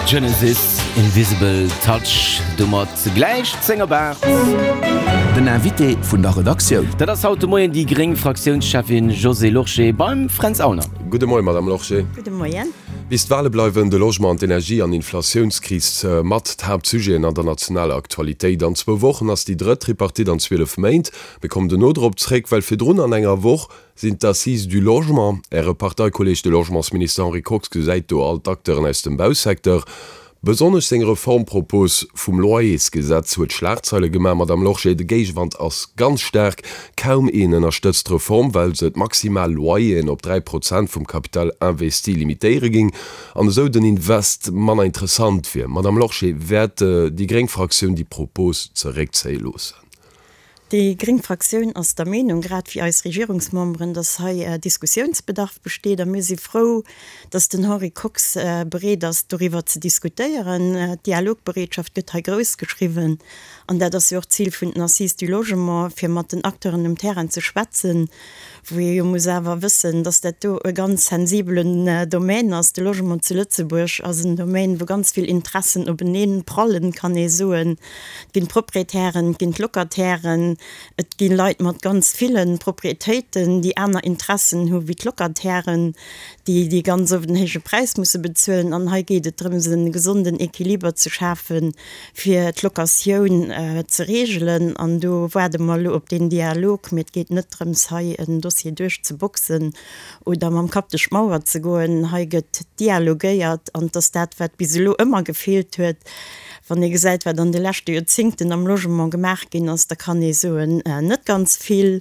Genesis, Invisible Touch, domat gläich 10 op 8. Den Invité vun der Redaktioun. Dat ass haut de Moien déi gréng Fraktiounscheffin Josée Lorsché beim Fränz Aulner. Gudde Moien, Madame Lorsché. Gudde Moien. Bis d'Wale bleiwen de Logement an d'Energie an Inflatiounskris mat d'Haaptsujeten an der nationaler Aktualitéit. An zwou Wochen ass déi drëtt Tripartite an 12 Méint. Mir kommen dono drop zréck, well virdrun an enger Woch sinn d'Assises du Logement. Äre Parteikolleeg, de Logementsminister Henri Kox, gesäit do all d'Acteuren aus dem Bausecteur. Besonnesch seng Reformpropos vum Loyersgesetz huet Schlagzeile gemaach. Madame Lorsché, de Géigewand ass ganz staark. Kaum een ënnerstëtzt d'Reform, well se d'maximal Loyeren op 3 Prozent vum Capital investi limitéiere géing an esou den Invest manner interessant wier. Madame Lorsché, wäert déi gréng Fraktioun déi Propos zeréckzéie loossen? Déi gréng Fraktioun ass der Meenung, grad wéi eis Regierungsmemberen, dass hei Diskussiounsbedarf besteet a mir si frou, dass den Henri Kox bereet ass, doriwwer ze diskutéieren. D'Dialogbereetschaft gëtt hei grouss geschriwwen an dat ass jo och d'Zil vun den Assises du Logement, fir mat den Acteuren um Terrain ze schwätzen, wou ee jo muss awer wëssen, dass dat do e ganz sensibelen Domaine ass. De Logement zu Lëtzebuerg ass en Domaine, wou ganz vill Interessen openeen prallen, kann ee soen. Et ginn d'Proprietären, et ginn d'Locatairen, et gi Leit mat ganz ville Proprietéiten, déi aner Interessen hu wéi d'Locatairen, déi déi ganz oft en héije Präis musse bezuelen. An hei geet et drëms, e gesonden Equiliber ze schafen, fir d'Locatioun ze reegelen. An do waarde mer elo op deen Dialog. Mee et geet net drëms, hei en Dossier duerchzeboxen oder mam Kapp duerch d'Mauer ze goen. Hei gëtt dialogéiert an et ass dat, wat bis elo ëmmer gefeelt huet. Wann ee gesäit, wat an de leschte Joerzéngten am Logement gemaach ginn ass, da kann ee soen, net ganz vill.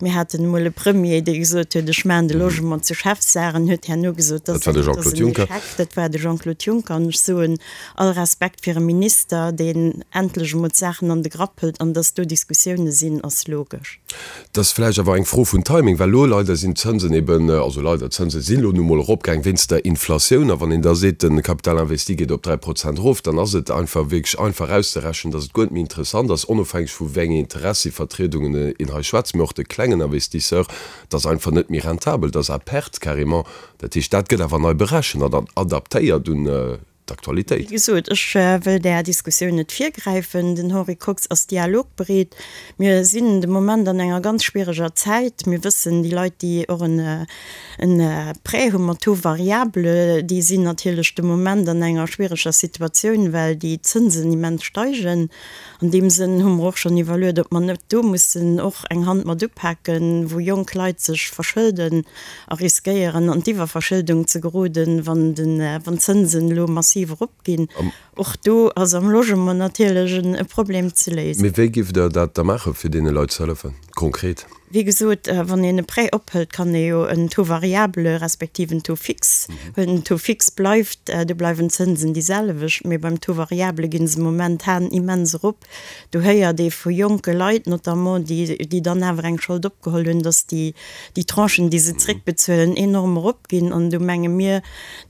Mir haten emol e Premier, dee gesot huet, ech maachen de Logement zur Chefsaach, an huet herno gesot, dat ass en Échec. Dat war de Jean-Claude Juncker. An ech soen, all Respekt fir e Minister, deen endlech emol d'Saachen an de Grapp hëlt. An datt do Diskussioune sinn, ass logesch. Et ass vläicht awer eng Fro vun Timing, well elo leider sinn d'Zënsen eben, also leider, d'Zënse sinn elo nu mol eropgaang wéinst der Inflatioun. A wann een da seet, de Capital investi geet op 3 Prozent erof, dann ass et einfach wierklech einfach auszerechnen, datt et guer net méi interessant ass, onofhängeg vu wéi enge Interessivertriedungen een hei schwätzt, mee och de klengen Investisseur, et ass einfach net méi rentabel, et ass à perte carrément. Dat heescht, dat gëtt awer nei berechent an adaptéiert un d'Aktualitéit. Wéi gesot, ech wëll där Diskussioun net virgräifen. Den Henri Kox ass dialogbereet. Mir sinn de Moment an enger ganz schwiereger Zäit. Mir wëssen, déi Leit, déi och en Prêt hu mat Taux variable, déi sinn natierlech de Moment an enger schwiereger Situatioun, well déi Zënsen immens steigen. An deem Sënn hu mer och schonn iwwerluet, ob mer net do mussen och eng Hand mat upaken, wou jonk Leit sech verschëlden a riskéieren an d'Iwwerverschëldung ze geroden, wann d'Zënsen elo massiv eropginn. Och do ass am Logement natierlech e Problem ze léisen. Mee wéi giff Der dat da maachen, fir deene Leit ze hëllefen, konkret? Wéi gesot, wann een e Prêt ophëlt, kann ee jo en Taux variable respektiv en Taux fixe huelen. Den Taux fixe bleift, do bleiwen d'Zënsen déi selwecht, mee beim Taux variable gi se momentan immens erop. Do héiert ee vu jonke Leit notamment, déi, déi dann awer eng Schold opgeholl hunn, datt déi, déi Tranchen, déi se zréckbezuelen, enorm eropginn. An do menge mir,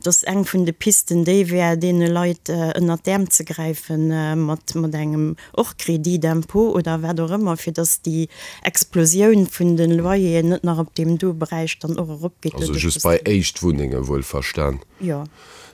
datt eng vun de Pisten déi wär, deene Leit ënnert d'Äerm ze gräifen mat, mat engem och Crédit d'impôt oder wat och ëmmer, fir dass déi Explosioun vun de Loyeren net nach op deem do Beräich dann och eropgeet. Also just bei Éischtwunnenge wuel verstan. Jo.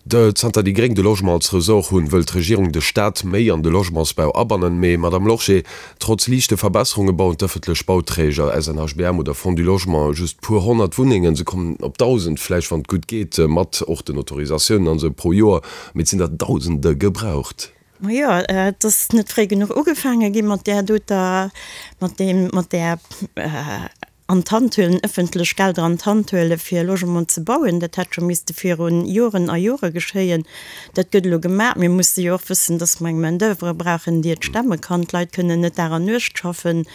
Zanter déi Gréng de Logement als Ressort hunn, wëll d'Regierung de Staat méi an de Logementsbau abannen. Mee, Madame Lorsché, trotz liichte Verbesserunge bauen d'ëffentlech Bauträger, SNHBM oder Fonds du Logement, just puer 100 Wunnengen. Se kommen op 1.000 vläicht, wann et gutt geet, mat och den Autorisatiounen an esou, pro Joer. Mee et sinn der Dausende gebraucht. Majo, et ass net fréi genuch ugefaange gi mat där doter, mat deem, mat där an d'Hand huelen, ëffentlech Gelder an d'Hand huele fir Logement ze bauen. Dat hätt scho misste viru Joren a Jore geschéien. Dat gëtt elo gemaach. Mir musse jo och wëssen, dass mer eng Main d'oeuvre brauchen, déi et stemme kann. D'Leit kënnen net Dag an Nuecht schaffen.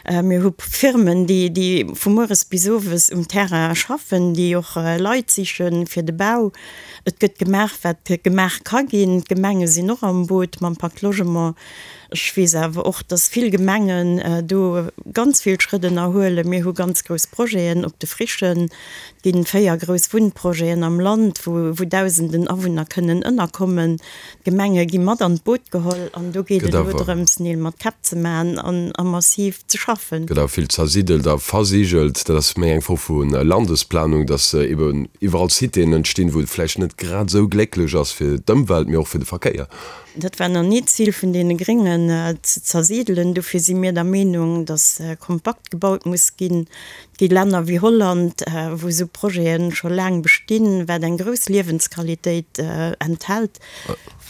Mir hu Firmen, déi, déi vu mueres bis owes um Terrain schaffen, déi och Leit siche fir de Bau. Et gëtt gemaach, wat gemaach ka ginn. D'Gemenge sinn och am Boot mam Pacte Logement. Ech weess awer och, dass vill Gemengen do ganz vill Schrëtt ënnerhuelen. Mir hu ganz grouss Projeten op de Frichen. Et ginn 4 grouss Wunnprojeten am Land, wou Dausenden Awunner kënnen ënnerkommen. D'Gemenge gi mat an d'Boot geholl an do geet et elo drëms, Neel mat Käpp ze maachen an a massiv ze schaffen. Gëtt awer vill zersiddelt a versigelt. Dat ass méi eng Fro vu Landesplanung, dass eben iwwerall Citéen entstinn, wou et vläicht net grad esou glécklech ass fir d'Ëmwelt, mee och fir de Verkéier. Dat war nach ni d'Zil vun deene Gréngen, ze zersidelen. Dofir si mir der Meenung, dass kompakt gebaut muss ginn. Et gi Länner wéi Holland, wou esou Projete scho laang bestinn, wat eng grouss Liewensqualitéit enthält,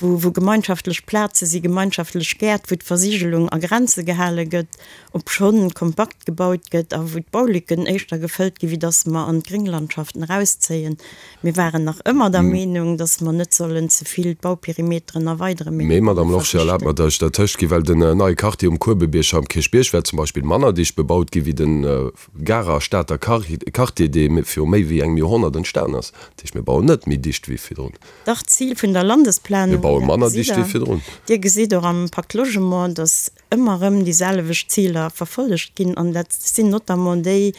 wou gemeinschaftlech Plaze si, gemeinschaftlech Gäert, wou d'Versigelung a Grenze gehale gëtt, obschonn kompakt gebaut gëtt a wou d'Baulücken éischter gefëllt ginn, wéi dass mer an d'Grénglandschaften erauszéien. Mir waren nach ëmmer der Meenung, dass mer net sollen ze vill d'Bauperimeteren erweideren, mee Mee, Madame Lorsché, erlaabt mer, dass ech dertëscht ginn, well den neie Quartier um Kuebebierg am Kierchbierg wäert zum Beispill manner dicht bebaut gi wéi de Garer a Stater Quartier, dee viru méi wéi engem Joerhonnert entstan ass. Dat heescht, mir bauen net méi dicht wéi virdrun. Dach, d'Zil vun der Landesplanung, Mir baue manner dicht wéi virdrun. Dir gesitt och am Pacte Logement, dass ëmmer erëm déi selwecht Ziler verfollegt ginn, an dat sinn notamment déi,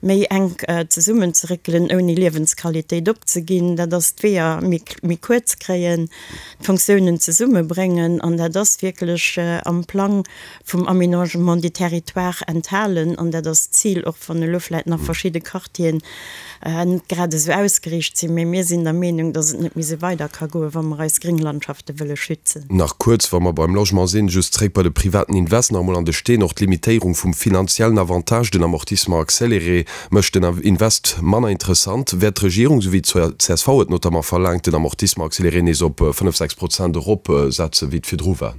méi enk zesummenzeréckelen, ouni Liewensqualitéit opzeginn, dat ass d'Weeër méi kuerz kréien, d'Fonctiounen zesummebréngen, an dat ass wierklech am Plang vum Aménagement du territoire enthalen, an dat ass d'Zil, och wann elo vläicht nach verschidde Quartieren net grad esou ausgeriicht sinn, mee mir sinn der Meenung, datt et net méi esou weider ka goen, wa mer eis Grénglandschafte wëlle schützen. Nach kuerz, wa mer beim Logement sinn, just zréck bei de privaten Invest nach emol an de Steen. Och d'Limitéierung vum finanziellen Avantage, den Amortissement accéléré, mécht den Invest manner interessant. Wäert d'Regierung, esou wéi d'CSV et notamment verlaangt, den Amortissement accéléré nees op 5, 6 Prozent eropsetzen, wéi et virdru war?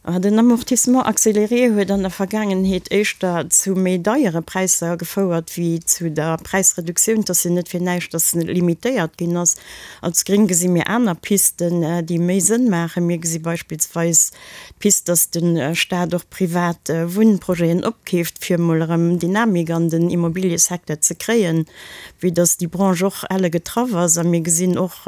Den Amortissement accéléré huet an der Vergaangenheet éischter zu méi deiere Präisser gefouert wéi zu der Präisreduktioun. Et ass jo net fir näischt, datt en limitéiert ginn ass. Als Gréng gesi mir aner Pisten, déi méi Sënn maachen. Mir gesi beispillsweis d'Pist, datt de Staat och privat Wunnprojeten opkeeft, fir emol erëm Dynamik an den Immobiliësecteur ze kréien, vue datt déi Branche och elle getraff ass. A mir gesinn och,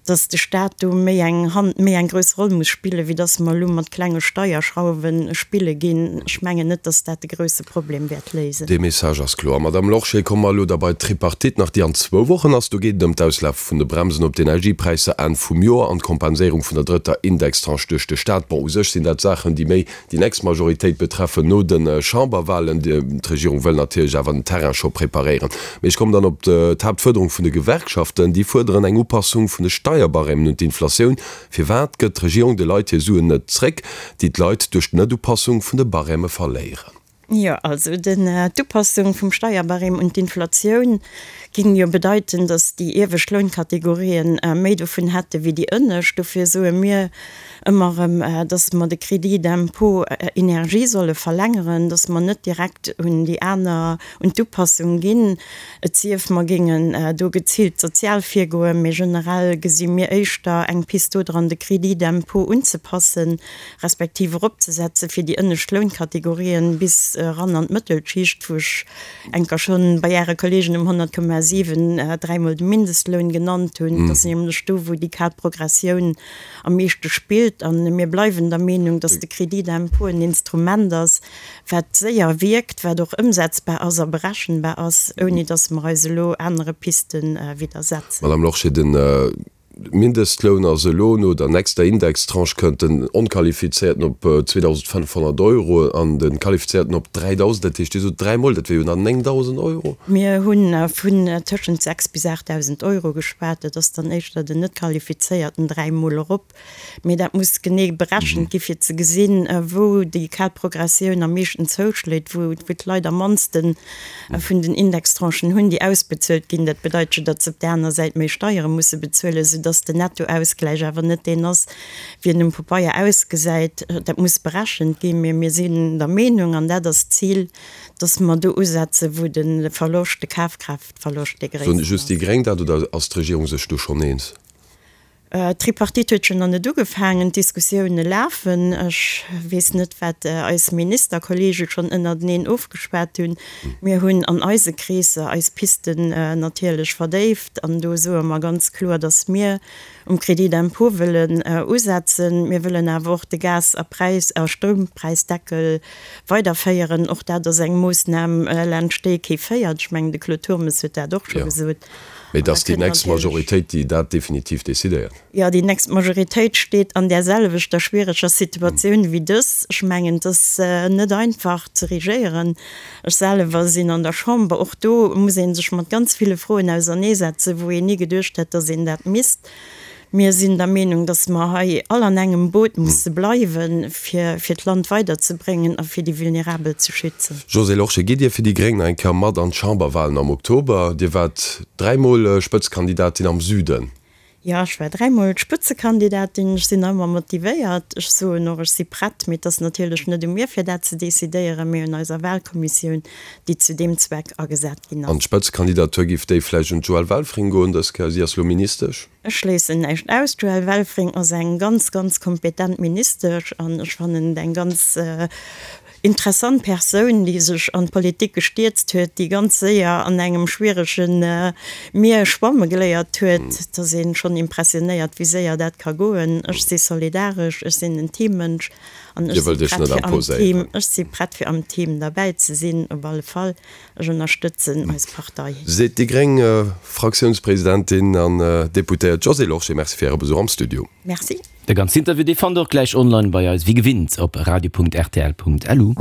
dass de Stat do méi eng Hand, méi eng grouss Roll muss spillen, wéi dass mer elo mat klenge Steierschrauwe spille ginn. Ech mengen net, dass dat de grouse Problem wäert léisen. Dee Message ass kloer. Madame Lorsché, komme mer elo da bei d'Tripartite nach, déi an zwou Wochen ass. Do geet et ëm d'Auslafe vun de Bremsen op d'Energiepräisser Enn vum Joer an d'Kompenséierung vun der drëtter Indextranche duerch de Stat. Bon, u sech sinn dat Saachen, déi méi déi nächst Majoritéit betreffen no de Chamberwahlen. D'Regierung wëll natierlech awer den Terrain scho preparéieren. Mee ech kommen dann op d'Haaptfuerderung vun de Gewerkschaften. Déi fuerderen eng Upassung vun de Steierbarèmen un d'Inflatioun. Firwat gëtt d'Regierung de Leit hir Suen net zréck, déi d'Leit duerch d'Net-Upassung vun de Barème verléieren? Jo, also d'Upassung vum Steierbarème un d'Inflatioun géing jo bedeiten, datt déi iewescht Lounkategorien méi dovun hätte wéi déi ënnescht. Dofir soe mir ëmmer erëm, datt mer de Crédit d'impôt énergie solle verlängeren, datt mer net direkt un déi aner, un d'Upassung ginn, et sief mer géingen do geziilt sozial virgoen. Mee generell gesi mir éischter eng Pist dodran, de Crédit d'impôt unzepassen, respektiv eropzesetze fir déi ënnescht Lounkategorien bis eran an d'Mëttelschicht, wou ech enker schonn bei Äre Kollegen um 100,7 dräimol de Mindestloun genannt hunn. Dat ass nämlech do, wou déi kal Progressioun am meeschte spillt. A mir bleiwen der Meenung, dass de Crédit d'impôt en Instrument ass, wat séier wierkt, wat och ëmsetzbar ass a berechenbar ass, ouni dass mer eis elo anere Piste widdersetzen. Madame Lorsché, den Mindestloun ass elo, no der nächster Indextranche kënnt den Onqualifizéierten op 2.500 Euro an de Qualifizéierten op 3.000. Dat heescht, Dir sot dräimol, dat wier jo dann 9.000 Euro. Mir hu vun tëschent 6 bis 8.000 Euro geschwat. Dat ass dann éischter den Net-Qualifizéierten dräimol erop. Mee dat muss genee berechent gi fir ze gesinn, wou déi kal Progressioun am meeschten zouschléit, wou d'Leit am mannste vun den Indextranchen hunn, déi ausbezuelt ginn. Dat bedeit jo, datt se op där aner Säit méi Steiere musse bezuelen, soudatt den Nettoausgläich awer net deen ass, wéi en um Pabeier ausgesäit. Dat muss berechent ginn. Mee mir sinn der Meenung, an dat ass d'Zil, datt mer do usetzen, wou de Verloscht, de Kafkraaftverloscht dee gréissten ass. Soen just déi Gréng dat oder ass d'Regierung sech do schonn eens? D'Tripartite huet jo nach net ugefaangen, d'Diskussioune lafen. Ech weess net, wat eis Ministerkollege schonn ënnerteneen ofgeschwat hunn. Mir hunn an eise Kreesser eis Pisten natierlech verdéift an do soe mer ganz kloer, datt mir um Crédit d'impôt wëllen usetzen. Mir wëllen awer och de Gas a Präis a Stroumpräisdeckel weiderféieren. Och dat ass eng Moossnam, laanscht déi kee féiert. Ech mengen, de Claude Turmes huet dat och scho gesot. Mee et ass déi nächst Majoritéit, déi dat definitiv decidéiert. Jo, déi nächst Majoritéit steet an där selwechter schwiereger Situatioun wéi dës. Ech mengen, et ass net einfach ze regéieren. Ech selwer sinn an der Chamber. Och do muss ee sech mat ganz ville Froen auserneesetzen, wou een ni geduecht hätt, datt een dat misst. Mir sinn der Meenung, dass mer hei all an engem Boot musse bleiwen, fir fir d'Land weiderzebréngen a fir déi Vulnerabel ze schützen. Josée Lorsché, gitt Dir fir déi Gréng nach eng Kéier mat an d'Chamberwahlen am Oktober? Dir waart dräimol Spëtzekandidatin am Süden. Jo, ech war dräimol Spëtzekandidatin. Ech sinn nach ëmmer motivéiert. Ech soen och, ech si prett. Mee et ass natierlech net u mir, fir dat ze decidéieren, mee un eiser Wahlkommissioun, déi zu deem Zweck agesat ginn ass. An d'Spëtzekandidatur, giff déi vläicht un d'Joëlle Welfring goen dës Kéier? Si ass lo Ministesch. Ech schléissen näischt aus. D'Joëlle Welfring ass eng ganz, ganz kompetent Ministesch an ech fannen et eng ganz interessant Persoun, déi sech an d'Politik gestierzt huet, déi ganz séier an engem schwierege Mier schwamme geléiert huet. Et ass ee schonn impressionéiert, wéi séier dat ka goen. Ech si solidaresch, ech sinn en Teammënsch an ech si prett fir am Team, ech si prett fir am Team derbäi ze sinn, op alle Fall. Ech ënnerstëtzen eis Partei. Seet déi gréng Fraktiounspresidentin an Deputéiert Josée Lorsché. Merci fir Äre Besuch am Studio. Merci. De ganzen Interview, dee fannt der och gläich online bei eis, wéi gewinnt op radio.rtl.lu.